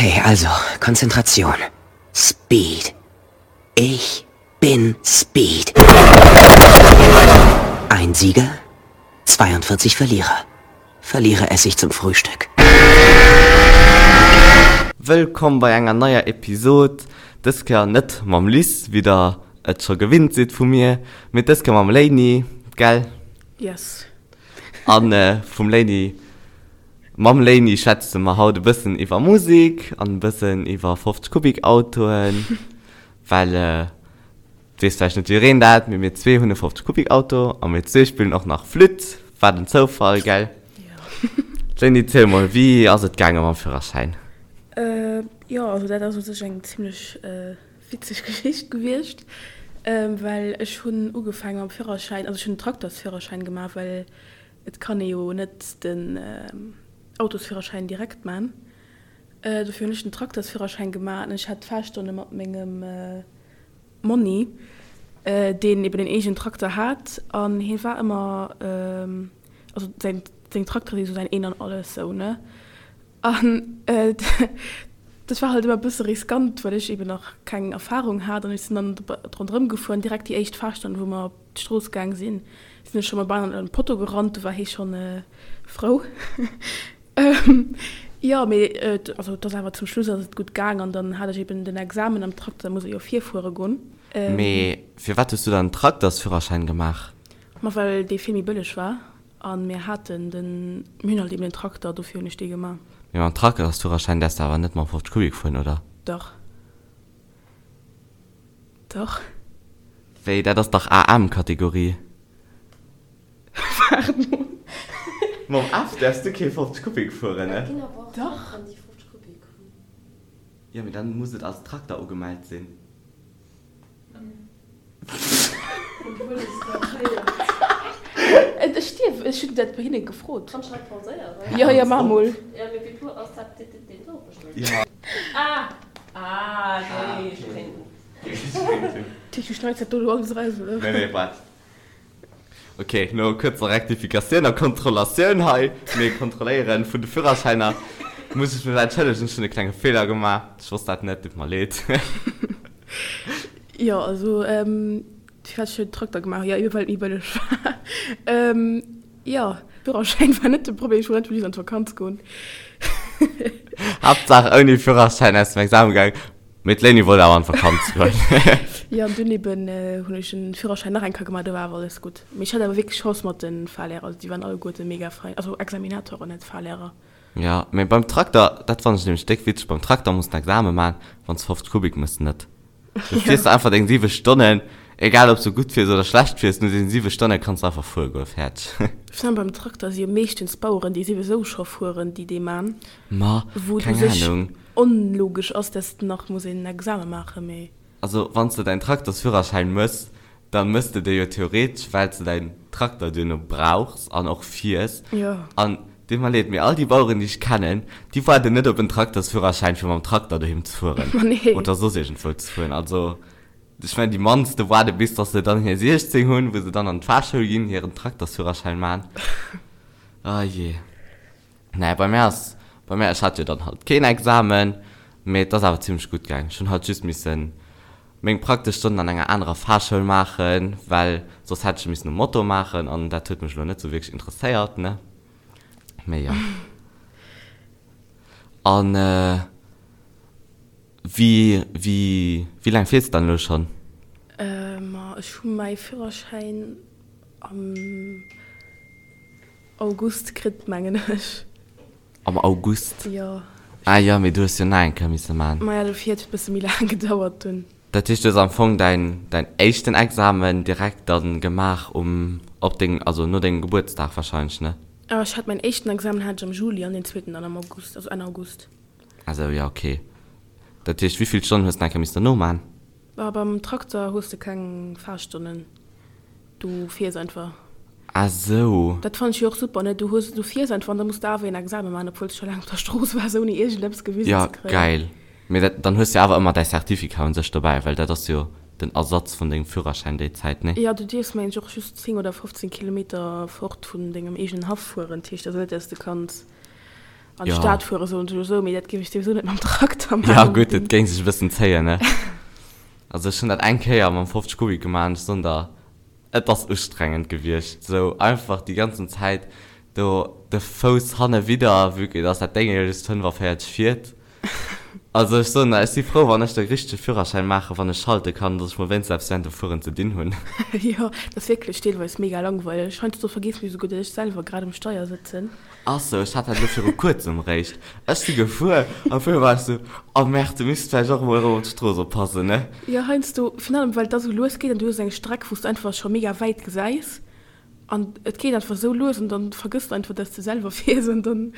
Okay, also, Konzentration. Speed. Ich bin Speed. Ein Sieger, 42 Verlierer. Verlierer esse ich zum Frühstück. Wëllkomm bei enger neier Episod, dës Kéier net mam Liz, wéi der et scho gewinnt sidd vu mir, mee dës Kéier mam Léini, gell? Yes. An vum Léini, mam Léini schwätze mer haut e bëssen iwwer Musek an e bëssen iwwer 50 Kubik Autoen, well et weess vläicht net jiddereen dat, mee mir zwee hunn e 50 Kubik Auto a mir zwee spillen och nach Flütt, wat en Zoufall, gell? Jo. Léini, ziel mol, wéi ass et gaange mam Führerschäin? Jo, also dat ass u sech eng zimmlech witzeg Geschicht gewiescht, well ech hunn ugefaange mam Führerschäin, also ech hunn den Traktersführerschäin gemaach, well et kann ee jo net den Autosführerschäin direkt man. Dofir hunn ech den Traktersführerschäin gemaach an ech hat d'Fahrstonne mat mengem Monni, deen eben en eegenen Trakter hat an hie war ëmmer, also säin seng Traktere si sou säin Een an Alles sou, ne? An dat war halt ëmmer e bësse riskant, well ech eben nach keng Erfarung hat an ech sinn dann ronderëm gefuer an direkt déi éischt Fahrstonn, wou mer op d'Strooss gaang sinn, sinn ech scho mol bal an e Potto gerannt, do war hie schonn frou. Jo, mee also et ass awer zum Schluss ass et gutt gaang an dann hat ech eben den Examen am Trakter, da muss ee jo virfuere goen. Mee firwat hues du dann den Traktersführerschäin gemaach? Ma well dee vill méi bëlleg war A mir haten den, mir hunn halt eben den Trakter, dofir hunn ech dee gemaach. Mee mam Traktersführerschäin däerfs de awer net mam 50 Kubik fueren, oder? Dach. Dach. Wéi, dat ass dach AM-Kategorie? Waart mol. Mam F däerfs du kee 50 Kubik fueren, ne? Dach. Jo, mee dann muss et als Trakter ugemellt sinn. Ech dierf, ech hunn dat bei hinne gefrot. Jo, jo, maach mol. Du schneits dat do elo alles eraus, oder? Nee, nee, waart. Ok, no kuerzer Rektifikatioun a Kontrollatioun hei, mir kontrolléieren vun de Führerschäiner, muss ech mech entschëllegen, ech hunn e klenge Feeler gemaach, ech wosst dat net, deet mer leed. Jo, also firwat ech den Trakter gemaach hunn, jo ebe well et méi bëlleg war. Jo, Führerschäin war net de Problem, ech wollt einfach just an d'Vakanz goen. Haaptsaach ouni Führerschäin aus dem Examen gaangen. Mee d'Léini wollt awer an d'Vakanz goen. Jo, an dunn eben hunn ech den Führerschäin nach eng Kéier gemaach, do war awer alles gutt. Mee ech hat awer wierklech Chance mat de Fahrlehrer, also déi waren alleguerte mega fein, also Examinatoren, net Fahrlehrer. Jo, mee beim Trakter, dat fannen ech nämlech déck witzeg, beim Trakter muss den Examen man, wann s 50 Kubik mëss net. Du fiers einfach deng 7 Stonnen, egal ob s du gutt fiers oder schlecht fiers, no deenen 7 Stonne kanns du einfach fuere goen, fäerdeg. Virun allem beim Trakter si jo meeschtens d'Baueren, déi souwisou scho fueren, déi dee man, Ma, wou et u keng sech Ahnung. onlogesch ass, dass de nach muss een Examen maachen, mee. Also wann s de däin Traktersführerschäin mëss, da mëss de dee jo theoretesch, well s de däin Trakter duerno brauchs an och fiers. Jo. An deet mer leed, mee all déi Baueren, déi ech kennen, déi waarden net op en Traktersführerschäin, fir mam Trakter doheem ze fueren Ma nee. oder soss iergendwou ze fueren. Also ech mengen, déi mannste waarde bis dass se dann hir 16 hunn, wou se dann an d'Fahrschoul ginn, hiren Traktersführerschäin man. Oh jee. Naja, bei mär ass, bei mär, ech hat jo dann halt keen Examen, mee et ass awer zimlech gutt gaang. Ech hunn halt just missen meng praktesch Stonnen an enger anerer Fahrschoul maachen, well soss hätt ech e missen um Moto maachen an dat huet mech elo net sou wierklech interesséiert, ne? Mee jo. An wéi, wéi, wéi laang fiers de dann elo schonn? Ma ech hu mäi Führerschäin am. August kritt, mengen ech. Am August? Jo. Ah jo, mee du hues jo nach eng Kéier misse man. Maja, dofir huet et bësse méi laang gedauert dunn. Dat heescht, du hues am Fong däin, däin éischten Examen direkt dann gemaach um, op deng, also no dengem Gebuertsdag wahrscheinlech, ne? Ah, ech hat mäin éischten Examen hat ech am Juli an deen zweeten dann am August, also Enn August. Ah sou, jo, okay. Dat heescht, wéivill Stonnen hues de nach eng Kéier missen dono man? Ah, beim Trakter hues de keng Fahrstonnen. Du fiers einfach. Ah sou. Dat fannen ech jo och super, ne? Du hues, du fiers einfach an da muss de awer een Examen maachen, obwuel s de scho laang op der Strooss waars, ouni iergendeppes gewisen Ja, ze kréien. geil. Mee dat, dann hues de jo awer ëmmer däi Certificat un sech dobäi, well dat ass jo den Ersatz vun dengem Führerschäin déi Zäit, nee? Jo, du dierfs mengen ech och just 10 oder 15 Kilometer fort vun dengem eegenen Haff fueren. Dat heescht also net, dass de kanns. An d'Stad fuere soen ech elo esou, mee dat géif ech souwisou net mam Trakter maachen. Jo gutt, et géing sech e bëssen zéien, ne? Also ech hunn dat eng Kéier mam 50 Kubik gemaach an ech soen der, et ass ustrengend gewiescht, esou einfach déi ganzen Zäit do de Fouss hanne widder, vue que dass dat Déng jo just 45 fiert. Also ech soen der, ech si frou wann ech de richtege Führerschäin maachen, wann ech schalte kann, dass ech mol wéinstens eppes während dem Fueren ze dinn hunn. Jo, dat ass wierklech deelweis mega langweileg. Heiansdo vergeessen ech esouguer, datt ech selwer grad um Steier sëtzen. Ach sou, ech hat dat elo viru kuerzem eréischt. Ech si gefuer an op eemol war ech sou, oh merde, du misst vläicht och emol erëm op d'Strooss oppassen, ne? Jo, heiansdo, virun allem well et da sou lues geet an du hues eng Streck, wou s du einfach scho mega wäit gesäis an et geet einfach sou lues an dann vergëss de einfach, dass de selwer fiers an dann.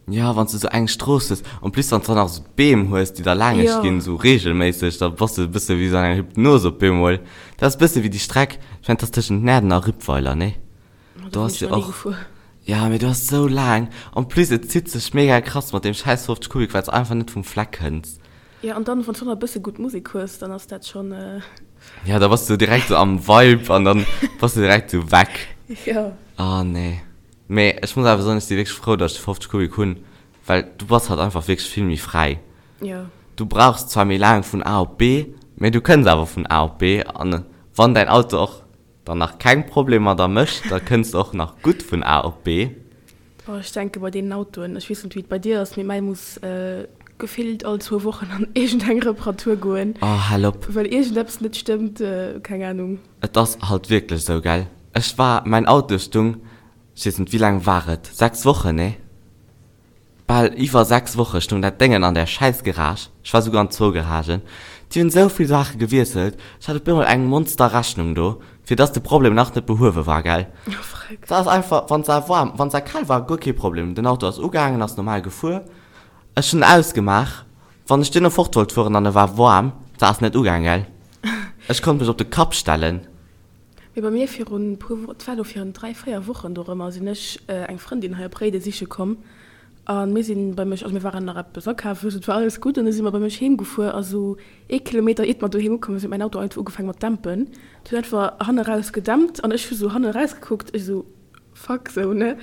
Jo, wann s du sou eng Strooss hues, en plus wann s du dann nach sou d'Beem hues, déi da laangesch ginn, sou reegelméisseg, da bass du e bësse wéi sou an enger Hypnos op eemol. Dat ass e bësse wéi déi Streck, ech mengen, dat ass tëschent Näerden a Rippweiler, ne? Do ass jo och. Ja, mee du ass sou laang. En plus et zitt sech mega krass mat deem schäiss 50 Kubik, well s einfach net vum Fleck kënns. Ja, an dann wann s du nach e bësse gutt Musek hues, dann ass dat schonn. Ja, da bass du direkt sou am Vibe an dann bass du direkt sou weg. Jo. Oh nee. Mee ech muss awer soen, ech si wierklech frou, datt ech de 50 Kubik hunn, well du bass halt einfach wierklech vill méi fräi. Jo. Du brauchs zwar méi laang vun A op B, mee du kënns awer vun A op B an wann däin Auto och Dann nach keng Problemer der mécht, da kënns de och nach gutt vun A op B. Oh, ech denke bei deenen Autoen, ech weess net wéi et bei dir ass, mee mäi muss gefillt all zwou Wochen an iergendeng Reparatur goen. Oh, hal op. Well iergendeppes net stëmmt, keng Ahnung. Et ass halt wierklech esou, gell? Ech war, mäin Auto stung, ech weess net, wéi laang war et, 6 Wochen, nee? Bal iwwer 6 Woche stoung dat Déngen an där schäiss Garage, ech war souguer an zwou Garagen, déi hunn esou vill Saache gewiesselt, ech hat op eemol eng Monster Rechnung do, fir dass de Problem nach net behuewe war, gell. Dat ass einfach, wann se waarm, wann se kal war, guer kee Problem, den Auto ass ugaangen, ass normal gefuer, ech hunn en ausgemaach, wann ech duerno fort wollt fueren an e war waarm, se ass net ugaang, gell, ech konnt mech op de Kapp stellen. Mee bei mir virun puer, et war elo virun 3, 4 Wochen dorëmmer, sinn ech eng Frëndin hei op Réiden siche komm a mir sinn bei mech, also mir waren nach eppes akafen, et war alles gutt an du si mer bei mech heem gefuer a sou ee Kilometer iert mer doheem ukomm sinn, huet mäin Auto einfach ugefaangen mat dämpen. Et huet einfach hanne raus gedämpt an ech hu sou hanne raus gekuckt, ech sou fuck sou ne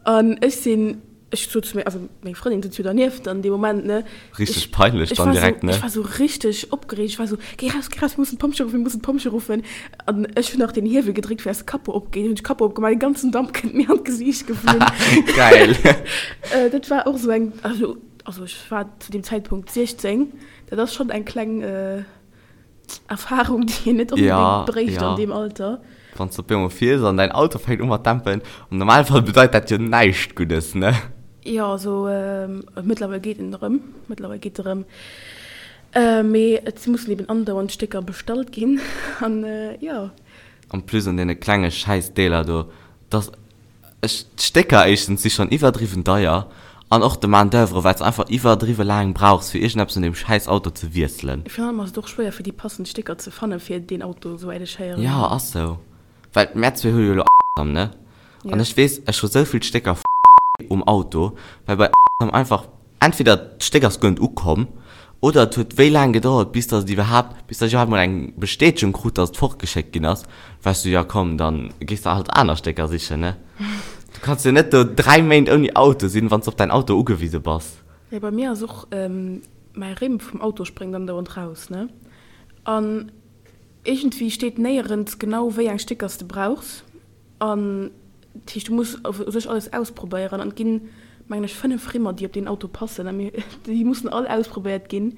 an ech sinn Ech sot zu mir, also meng Frëndin sëtzt jo dernieft an deem Moment, ne. Richteg peinlech dann direkt, ne? Ech war sou richteg opgereegt, ech war sou, Géi raus, géi raus, mir mussen d'Pompjee ruffen, mir mussen d'Pompjee ruffen. An ech hunn nach den Hiewel gedréckt, fir dass de Capot opgeet. Hunn ech de Capot opgemaach, den ganzen Damp kënnt mir an d'Gesiicht geflunn. Geil! Dat war och sou eng, also, also ech war zu deem Zäitpunkt 16, dat ass schonn eng kleng. Erfahrung, déi een net unbedéngt bréicht an deem Alter. Wann s de op eemol fiers an däin Auto fänkt u mat dämpen, am Normalfall bedeit dat jo näischt Guddes, ne? Jo, also mëttlerweil geet en erëm, mëttlerweil geet e rëm. Mee et mussen eben andauernd Stécker bestallt ginn an jo. En plus un deene klenge Schäissdeeler do, dass. Ech, d'Stécker éischtens si schonn iwwerdriwwen deier an och de Main d'oeuvre, well s einfach iwwerdriwwe laang brauchs fir iergendeppes un deem schäiss Auto ze wiesselen. Virun allem ass et och schwéier fir déi passend Stécker ze fanne fir deen Auto, souwäit ech héieren. Jo, ass sou. Well mär zwee hu jo elo am, ne? An ech weess, ech hu sou vill Stécker um Auto, well bei einfach Entweder d'Stéck ass guer net ukomm, oder et huet wéi laang gedauert, bis dass et iwwerhaapt, bis dass ech iwwerhaapt mol eng Bestätegung krut, dass et fortgeschéckt ginn ass. War ech sou, jo komm, dann gees de halt aner Stécker sichen, ne? Du kanns jo net do 3 Méint ouni Auto sinn, wann s de op däin Auto ugewise bass. Jo, bei mir ass och, mäi Rimm vum Auto spréngt andauernd raus, ne? An iergendwéi steet néierens genau, wéi eng Stécker s de brauchs. An dat heescht, du muss u sech alles ausprobéieren. An et ginn, mengen ech, 5 Rimmer, déi op deen Auto passen. A mir, déi mussen all ausprobéiert ginn.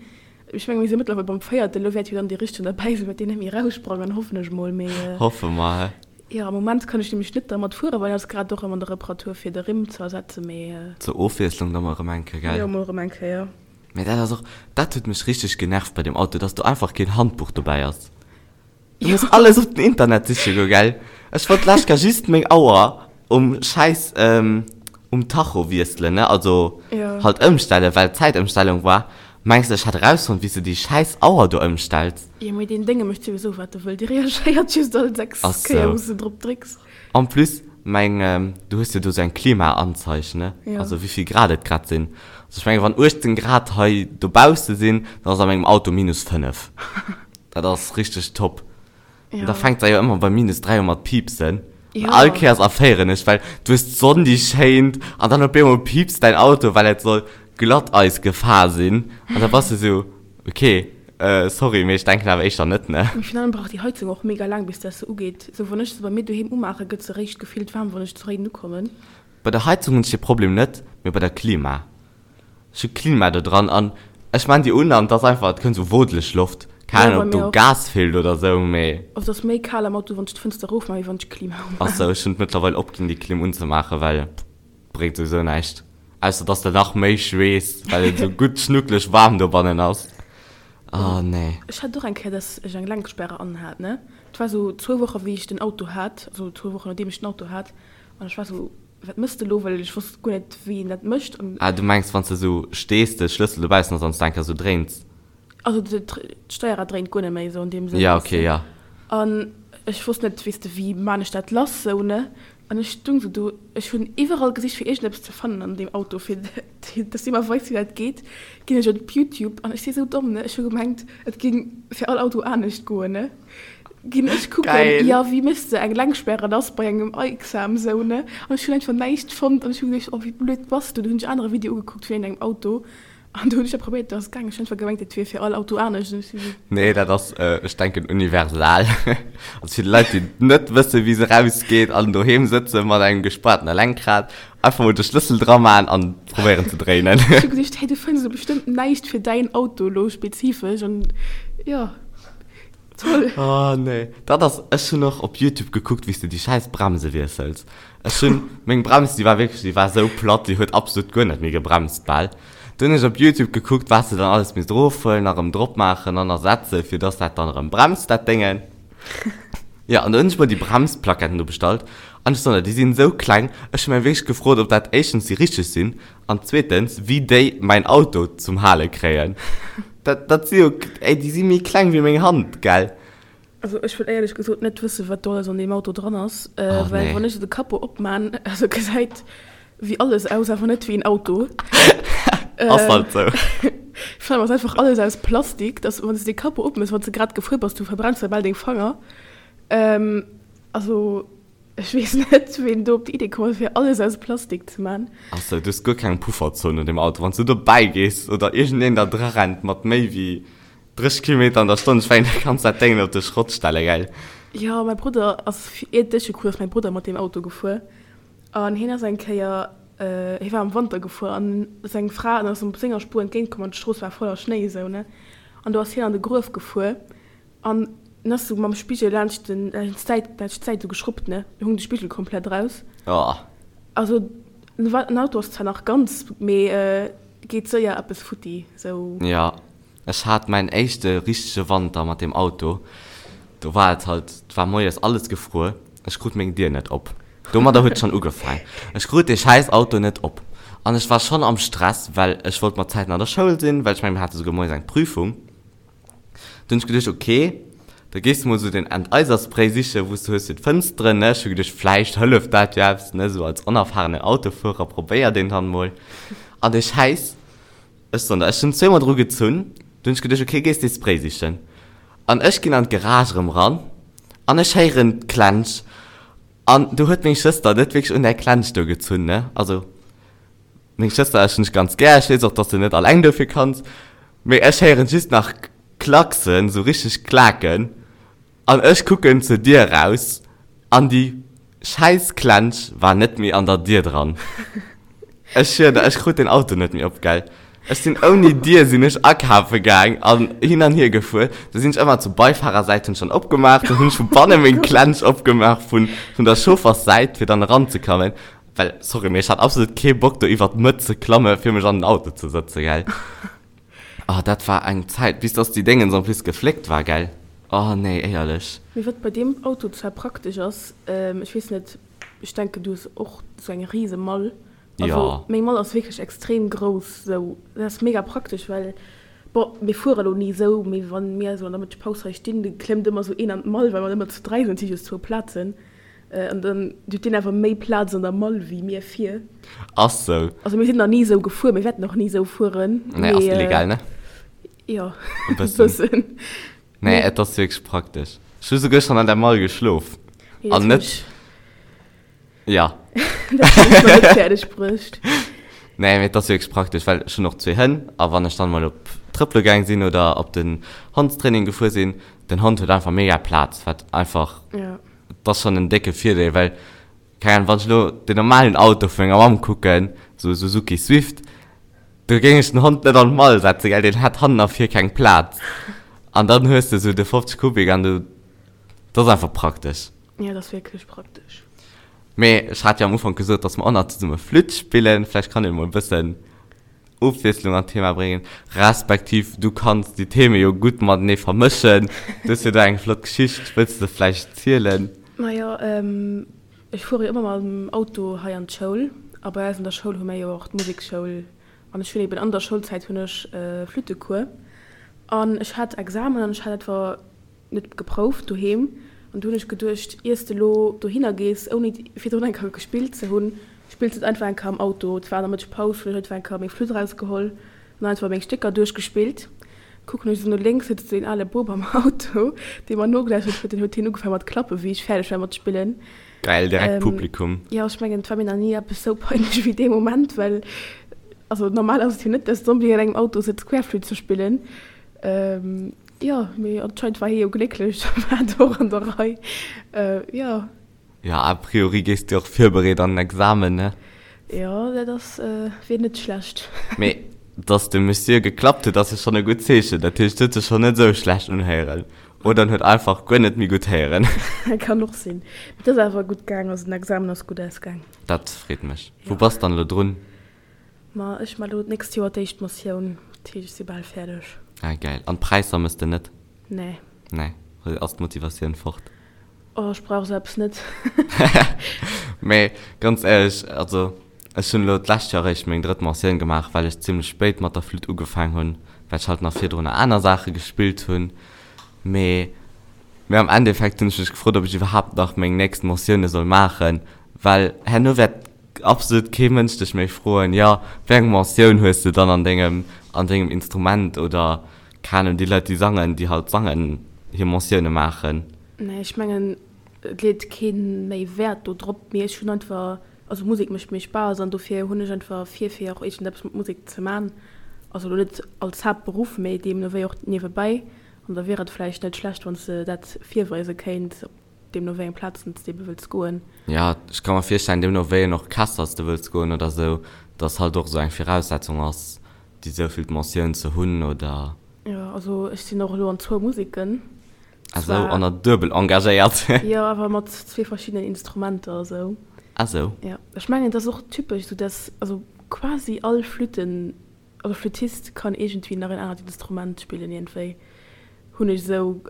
Ech menge mir si mëttlerweil beim véierten. Elo wäert jo dann dee richtegen derbäi sinn, wäert deen net méi eraussprangen, hoffen ech mol. Mee. Hoffe mer, hä? Jo, am Moment kann ech nämlech net dermat fueren, well en ass grad och erëm an der Reparatur, fir de Rimm ze ersetzen. Mee. Zur Ofwiesslung da mol erëm eng Kéier, gell? Jo, mol erëm eng Kéier. Mee dat ass och, dat huet mech richteg genervt bei deem Auto, dass do einfach keen Handbuch dobäi ass. Du muss alles op den Internet siche goen, gell? Ech wollt d'lescht Kéier just meng Auer um schäiss um Tacho wiesselen, ne? Also halt ëmstellen, well Zäitëmstellung war. Mengs de, ech hätt erausfonnt, wéi s de déi schäiss Auer do ëmstells? Jo, mee deen Dénge mécht souwisou, wat e wëll. Dee reagéiert just all 6 Kéier, wou s de drop drécks. En plus, meng, du hues jo do sou eng Klimaanzeig, ne? Also wéi vill Grad et grad sinn. Also ech mengen, wann 18 Grad hei dobausse sinn, dann ass a mengem Auto minus 5. Dat ass richteg top. An da fänkt se jo ëmmer bei minus 3 u mat piipsen. An all Kéiers erféieren ech, well du hues d'Sonn déi schéint an dann op eemol piipst däin Auto, well et soll Glatteis gefahr sinn an da bass de sou, ok, sorry, mee ech denken awer éischter net, ne? Mee virun allem brauch déi Heizung och mega laang bis dass se ugeet. Sou wann ech se bei mir doheem umaachen, gëtt se réischt gefillt waarm wann ech zu Réiden ukommen. Bei der Heizung hunn ech dee Problem net, mee bei der Klima. Ech hu Klima do dran an ech maan déi un an et ass einfach, et kënnt sou wodeleg Loft. Keng Ahnung ob do Gas feelt oder sou, mee. Also et ass méi kal am Auto wann ech d'Fënster erof maan wéi wann ech d'Klima umaan. Ass sou, ech hunn et mëttlerweil opginn déi Klim unzemaachen, well bréngt souwisou näischt, ausser dass de nach méi schweess, well et sou gutt schnuckeleg waarm dobannen ass. Oh nee. Ech hat och eng Kéier dass ech eng Lenksperre anhat ne, et war sou zwou Woche wéi ech den Auto hat, also zwou Wochen nodeem ech den Auto hat an ech war sou, Wat mëss de elo? Well ech wosst guer net, wéi een dat mécht. An. Ah, du mengs, wann s de esou stees, de Schlëssel dobaussen ass an s de eng Kéier esou dréins? Also d'Steierrad dréint guer net méi esou an deem Sënn, Ja, weess okay, de. ja. An ech wosst net, weess de, wéi maan ech dat lass esou, ne? An ech stung esou do, ech hunn iwwerall gesicht, fir iergendeppes ze fannen an deem Auto, fir dass dee mer weist, wéi dat geet. Ginn ech op Youtube an ech si esou domm, ne? Ech hu gemengt, et géing fir all Auto anescht goen, ne? Ginn ech kucken, Geil. jo, wéi méchs de eng Lenksperre lass bei engem Aixam sou, ne? An ech hunn einfach näischt fonnt an ech hu geduecht, oh wéi blöd bass du? Du hunn ech anere Video ugekuckt vun engem Auto an do hunn ech dat probéiert, dat ass gaangen. Ech hunn einfach gemengt, dat wier fir all Auto anescht an ech si sou. Nee, dat ass, ech denken, universal. Also fir déi Leit, déi net wëssen, wéi se rausgeet an doheem sëtze mat engem gespaartene Lenkrad, einfach mol de Schlëssel dra man an probéieren ze dréinen. Ech hu geduecht, hey, du fënns elo bestëmmt näischt fir däin Auto elo spezifesch an jo. Toll. Oh nee, dat ass, ech hunn och op Youtube gekuckt wéi s de déi schäiss Bremse wiessels. Ech hunn, meng Brems déi war wierklech, déi war esou platt, déi huet absolut guer net méi gebremst bal. Du hunn ech op Youtube gekuckt wat s de dann alles misst erofhuelen a rëm drop maachen an ersetzen, fir dass dat dann erëm bremst dat Déngen. Jo, an du hunn ech mer déi Bremsplaketten do bestallt an ech soen der, déi sinn esou kleng, ech hu mech wierklech gefrot ob dat éischtens déi richteg sinn An zweetens, wéi déi mäin Auto zum Hale kréien. Dat, dat si jo, ey, déi si méi kleng wéi meng Hand, gell? Also ech wëll éierlech gesot net wëssen, wat do alles an deem Auto dran ass, Oh well nee. wann ech de Capot opman, also gesäit wéi alles aus, awer net wéi en Auto. Ass halt sou. Vor allem ass einfach alles aus Plastik, dass wann s de de Capot opmëss, wann s de grad gefuer bass, du verbrenns der bal deng Fanger. Also. Ech weess net, ween do op déi Idee komm ass, fir alles aus Plastik ze man. Achso, du hues guer keng Pufferzon un dem Auto. Wann s du dobäi gees oder iergendeen der dra rennt mat méi wéi 30 Kilometer an der Stonn, ech mengen, da kanns dat Déngen op de Schrott stelle, gell? Jo, mäi Brudder ass, iert ech geku ass mäi Brudder mat deem Auto gefuer an hien ass eng Kéier, hie war am Wanter gefuer an seng Fra ass op senger Spuer entgéint komm an d'Strooss war voller Schnéi esou, ne, an do ass hien an de Gruef gefuer An en ass sou mam Spigel laanscht den, laanscht d'Säit, laanscht d'Säit sou geschruppt, ne? Do hung de Spigel komplett raus. Oh. Also, den Wa, den Auto ass zwar nach ganz, mee geet séier eppes futti, sou. Jo, ech hat mäin éischte richtege Wanter mat deem Auto. Do war et halt, et war moies alles gefruer, ech krut meng Dier net op. Domadder huet et schonn ugefaang. Ech krut dee schäiss Auto net op. An ech war schonn am Stress, well ech wollt mat Zäiten an der Schoul sinn, well ech mengen, mir hate souguer moies eng Prüfung. Dunn hunn ech geduecht, ok, da gees de mol sou den Enteiserspray sichen, wou s de hues fir d'Fënsteren, ne. Ech hu geduecht, vläicht hëlleft dat jo eppes, ne, sou als onerfahrenen Autofuerer probéiert een dann mol. An dee Schäiss, ech soen der, ech hunn zweemol dru gezunn, dunn hunn ech geduecht, ok, gees dee Spray sichen. An ech ginn an d'Garage erëm ran an ech héieren d'Klensch an do huet meng Schwëster net wierklech un där Klensch do gezunn, ne, also. Meng Schwëster ech hunn dech ganz gär, ech weess och dass de net alleng dofir kanns, mee ech héieren just nach Klacksen, sou richteg Klaken an ech kucken zur Dier raus an déi schäiss Klensch war net méi an der Dier dran. Ech schwier der, ech krut den Auto net méi op, gell. Ech sinn ouni Dier sinn ech akafe gaang an hin an hier gefuer, da sinn ech ëmmer zur Beifahrersäit hunn ech dann opgemaach, dann hunn ech vu banne meng Klensch opgemaach vun vun der Chaufferssäit fir dann eranzekammen. Well, sorry, mee ech hat absolut kee Bock do iwwert d'Mëtt ze klamme fir mech an den Auto ze sëtzen, gell. Oh, dat war eng Zäit, bis dass déi Déngens en plus gefléckt war, gell. Oh nee, éierlech. Mee wat bei deem Auto zwar praktesch ass, ech weess net, ech denken du hues och sou eng rise Mall. Also Jo. meng Mall ass wierklech extrem grouss, sou dat ass mega praktesch, well bon mir fuere elo ni sou, mee wann mir sou an der Mëttegpaus hei stinn, da klëmmt ëmmer sou een an d'Mall, well mer ëmmer zu 3 sinn, et si just zwou Plazen. An dann huet deen awer méi Plaz an der Mall wéi mir vir. Ass sou. Also mir sinn nach ni sou gefuer, mir wäerten och ni sou fueren. Nee, ass illegal, ne? Jo, e bëssen. Nee, et ass wierklech praktesch. Ech hu souguer schonn an der Mall geschlof. An net. Ja. Dat hunn ech nach net fäerdeg bruecht. Nee, mee et ass wierklech praktesch, well ech hunn och zwee Hënn a wann ech dann mol op trëppele gaang sinn oder op den Hondstraining gefuer sinn, den Hond huet einfach mega Plaz, wat einfach, Ja. et ass schonn en décke Virdeel, well, keng Ahnung, wann ech elo den normalen Auto vu menger Mamm kucken, sou e Suzuki Swift, do géing ech den Hond net an d'Mall setzen, gell, deen hätt hannen a vir keng Plaz. An dann hues de sou de 50 Kubik an du, dat ass einfach praktesch. Ja, dat ass wierklech praktesch. Mee ech hat jo am Ufank gesot, dass mer och nach zesumme Flütt spillen. Vläicht kann een emol e bëssen Ofwiesslung an d'Thema bréngen, respektiv du kanns déi Theme jo gutt matenee vermëschen. Du hues jo do eng flott Geschicht, wëlls de se vläicht zielen? Majo, ech fuere jo ëmmer mam Auto hei an d'Schoul a bei eis an der Schoul hu mir jo och d'Musekschoul an ech hunn eben an der Schoulzäit hunn ech Flüttecours an ech hat Examen an ech hat etwa net geprouft doheem an du hunn ech geduecht, iers de lo dohinner gees ouni virdrun eng Kéier gespillt ze hunn, spills de et einfach eng Kéier am Auto. Et war an der Mëttegpaus, hunn ech einfach eng Kéier meng Flütt erausgeholl an einfach meng Stécker duerchgespillt. Kucken ech esou no lénks, sëtzt esou een ale Bub am Auto, dee mer nogelauschtert huet. Deen huet hien ugefaangen mat klappen, wéi ech fäerdeg war mat spillen. Geil, direkt Publikum. Jo, ech mengen, et war mir nach ni eppes esou peinlech wéi dee Moment, well also normal ass et jo net, dass de onbedéngt an engem Auto sëtz Querflütt ze spillen. Jo, mee anscheinend war hie jo glécklech, da war et och an der Rei. Jo. Jo, a priori gees du och virbereet an den Examen, ne? Jo, dat ass, wier net schlecht. Mee dass de Monsieur geklappt huet, ass jo schonn e gutt Zeechen. Dat heescht, huet sech schonn net esou schlecht unhéieren. Oder en huet einfach guer net méi gutt héieren. Kann och sinn. Mee et ass awer gutt gaang, also den Examen ass gutt ausgaang. Dat freet mech. Wou bass dann elo drun? Ma ech man elo d'nächst Joer d'éischt Motioun, dat heescht ech si bal fäerdeg. Ah geil. An d'Präisser mëss de net? Nee. Nee, ass d'Motivatioun fort? Oh, ech brauch esou eppes net. Mee ganz éierlech, also ech hunn elo d'lescht Joer eréischt meng drëtt Motioun gemaach, well ech zimmlech spéit mat der Flütt ugefaang hunn, well ech halt nach virdrunner aner Saache gespillt hunn. Mee mee am Endeffekt hunn ech mech gefrot, ob ech iwwerhaapt nach meng nächst Motioune soll maachen, well herno wäert absolut kee Mënsch dech méi froen, jo, wéi eng Mentioun hues de dann an dengem, an dengem Instrument oder, keng Ahnung, déi Leit déi sangen, déi halt sangen, hir Mentioune maachen. Nee, ech mengen, et leet kee méi Wäert do drop, mee ech hunn einfach, also Musek mécht mir Spaass an dofir hunn ech einfach vir, fir och iergendeppes mat Musek ze man. Also elo net als Haaptberuff, mee deemno wéi och niewebäi. An da wier et vläicht net schlecht, wann s de dat virweise kéints, op Deemno wéi eng Plazen s de ebe wëlls goen. Jo, ech ka mer virstellen, deemno wéi en Orchester s de wëlls goen oder sou, dass halt och sou eng Viraussetzung ass, déi souvill Mentioun ze hunn oder. Jo, also ech sinn och elo an zwou Museken. Ah sou, an der duebel engagéiert. Jo, awer mat zwee verschiddenen Instrumenter esou. Ah sou. Jo, ech mengen et ass och typesch esou, dass also quasi all Flütten Also Flüttist kann iergendwéi nach en anert Instrument spillen iergendwéi hunn ech esou,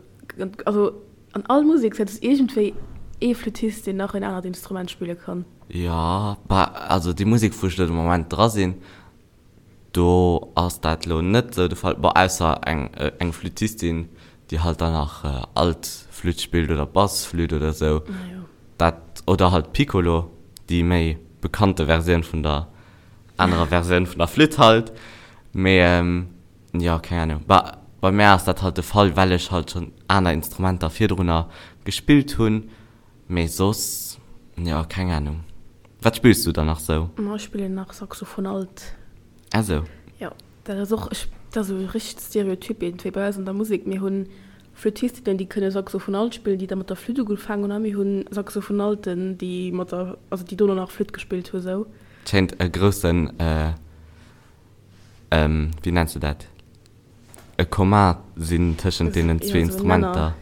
also an all Musek sëtzt iergendwéi ee Flüttist deen nach en anert Instrument spille kann. Jo, bah also déi Musek wou ech elo de Moment dra sinn, do ass dat elo net esou de Fall, bon ausser eng eng Flüttistin déi halt dann nach Altflütt spillt oder Bassflütt oder esou, dat oder halt Piccolo, déi méi bekannte Versioun vun der anerer Versioun vun der Flütt halt, mee jo, keng Ahnung. Bah, bei mär ass dat halt de Fall, well ech halt schonn aner Instrumenter virdrunner gespillt hunn, mee soss, jo, keng Ahnung. Wat spills du dann nach sou? Ma ech spillen nach Saxophon alt. Ah sou. Jo, dat ass och, ech, dat ass esou richteg Stereotyp iergendwéi bei eis an der Musek. Mir hunn Flüttistinnen, déi kënne Saxophon alt spillen, déi da mat der Flütt ugefaangen hunn, a mir hunn Saxophonalten, déi mat der, also déi dono nach Flütt gespillt hu sou. Schéint e groussen, wéi nenns de dat, e Commun sinn tëschent deenen zwee Instrumenter.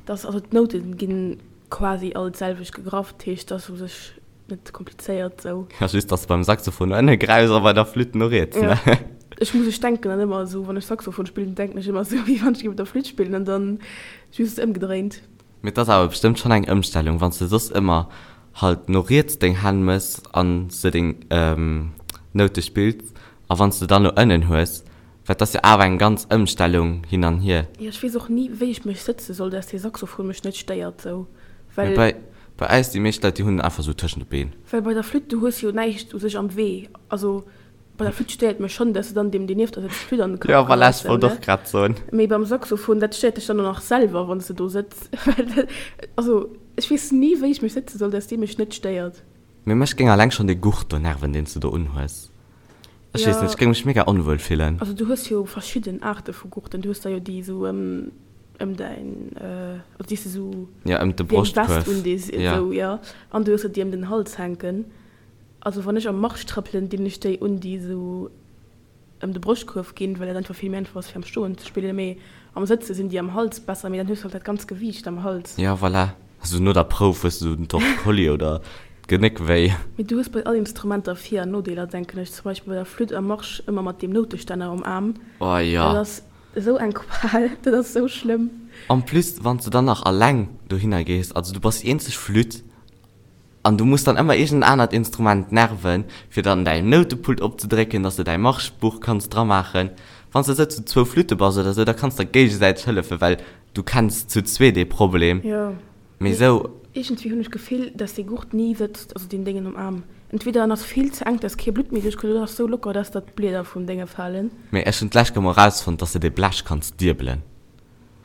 Dass, also d'Noute ginn quasi all d'selwecht gegraff, dat heescht, dass u sech net komplizéiert sou. Ja, just dass de beim Saxophon no ënne gräifs a bei der Flütt no riets, ne? Ja, ech muss, ech denken dann ëmmer esou, wann ech Saxophon spillen, denken ech ëmmer esou, wéi wann ech géif op der Flütt spillen an dann just ëmgedréint. Mee et ass awer bestëmmt schonn eng Ëmstellung, wann s de soss ëmmer halt no riets deng Hänn mëss an s de deng Noute spills a wann s de dann no ënnen hues, well et ass jo awer eng ganz Ëmstellung hin an hier. Jo, ech weess och ni wéi ech mech sëtze soll, dass dee Saxophon mech net stéiert sou, well. Mee bei bei eis, déi meescht Leit, déi hunn en einfach sou tëschent de Been. Well bei der Flütt, du hues jo näischt u sech am Wee, also Bei der Flütt stéiert mech schonn, dass se dann deem, deen nieft der sëtzt, d'Flütt an de Kapp Jo, voilà, geheit, ech wollt ne? och grad soen. Mee beim Saxophon, dat stéiert dech dann och nach selwer, wann s de do sëtz. Well dat, also ech weess ni, wéi ech mech sëtze soll, dass dee mech net stéiert. Mee mech géing alleng schonn dee Gurt do nerven, deen s du do unhues. Ech weess net, ech géing mech mega onwuel fillen. Also du hues jo verschidden Aarte vu Gurten. Du hues der jo déi esou ëm ëm däin, also déi s de esou Ja, ëm de wéi eng Vest Broschtkuerf, undees, ja. esou, jo. An du hues der déi ëm den Hals hänken. Also wann ech am Marsch trëppelen, dinn ech déi un, déi esou ëm de Broschtkuerf ginn, well dat einfach vill méi einfach ass fir am Stoen ze spillen, mee am Sëtze sinn déi am Hals besser, mee dann hues du halt dat ganz Gewiicht am Hals. Jo, voilà. Also no der Prouf hues du den Torticollis oder d'Genéck wéi. Mee du hues bei all Instrumenter Vir an Nodeeler, denken ech. Zum Beispill bei der Flütt am Marsch ëmmer mat deem Noutestänner um Aarm. Oh jo. Dat ass esou eng Qual, dat ass esou schlëmm. En plus wann s de dann nach alleng dohinner gees, also du bass déi eenzeg Flütt, An du muss dann ëmmer iergend en anert Instrument nerven, fir dann däin Noutepult opzedrécken, dass de däi Marschbuch kanns dramaachen. Wann s de esou zu zwou Flütte bass oder esou, da kanns der géigesäiteg hëllefen, well du kenns zu zwee dee Problem. Jo, Mee esou. Iergendwéi hunn ech d'Gefill, dass dee Gurt ni sëtzt, also deen Déngen um Aarm. Entweder en ass vill ze enk, dass kee Blutt méi duerchkënnt, oder en ass esou locker, dass der d'Blieder vum Dénge falen. Mee ech hunn d'lescht Kéier mol erausfonnt, dass de dee Blech kanns diebelen.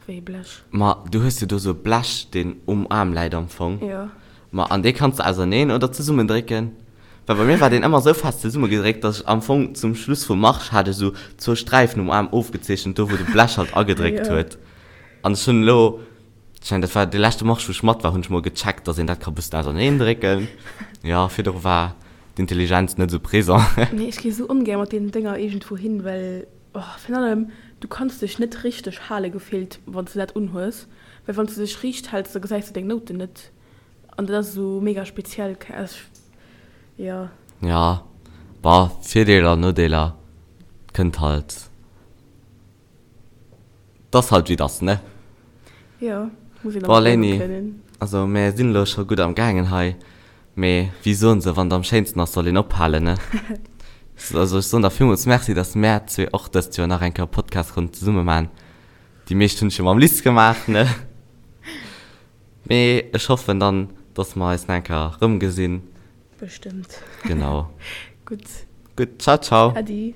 Wéi e Blech? Ma du hues jo do sou e Blech, deen um Aarm läit am Fong. Jo. Ma an dee kanns de auserneen oder zesummendrécken. Well bei mir war deen ëmmer sou fest zesummegedréckt, dass ech am Fong zum Schluss vum Marsch hat ech sou zwou Sträifen um Aarm ofgezeechent, do wou de Blech halt agedréckt Jo. huet. An ech hunn elo, ech mengen dat war dee leschte Marsch wou ech mat war, hunn ech mol gecheckt, dass een dat ka bëssen auserneen drécken. Jo, virdru war d'Intelligenz net sou présent. Nee, ech gi sou ongär mat deenen Dénger iergendwou hin, well Oh, virun allem, du kanns dech net richteg hale gefillt, wann s de dat unhues, well wann s de dech riicht häls, da gesäis de deng Nouten net an dat ass esou mega speziell, ech, jo. Jo, bon, Virdeeler, Nodeeler, kënnt halt, 't ass halt wéi 't ass, ne? Jo, muss een Bon, dermat liewe Léini, kënnen. also mär sinn elo scho gutt am gaangen hei. Mee wéi soen se, wann et am schéinsten ass, soll een ophalen, ne? Also ech soen der villmools Merci, dass mär zwee och dëst Joer nach eng Kéier e Podcast konnten zesumme maachen. Déi meescht hunn ech jo mam Liz gemaach, ne? Mee ech hoffen dann, dass mer eis nach eng Kéier erëmgesinn. Bestëmmt. Genau. Gutt. Gutt, ciao, ciao. Äddi.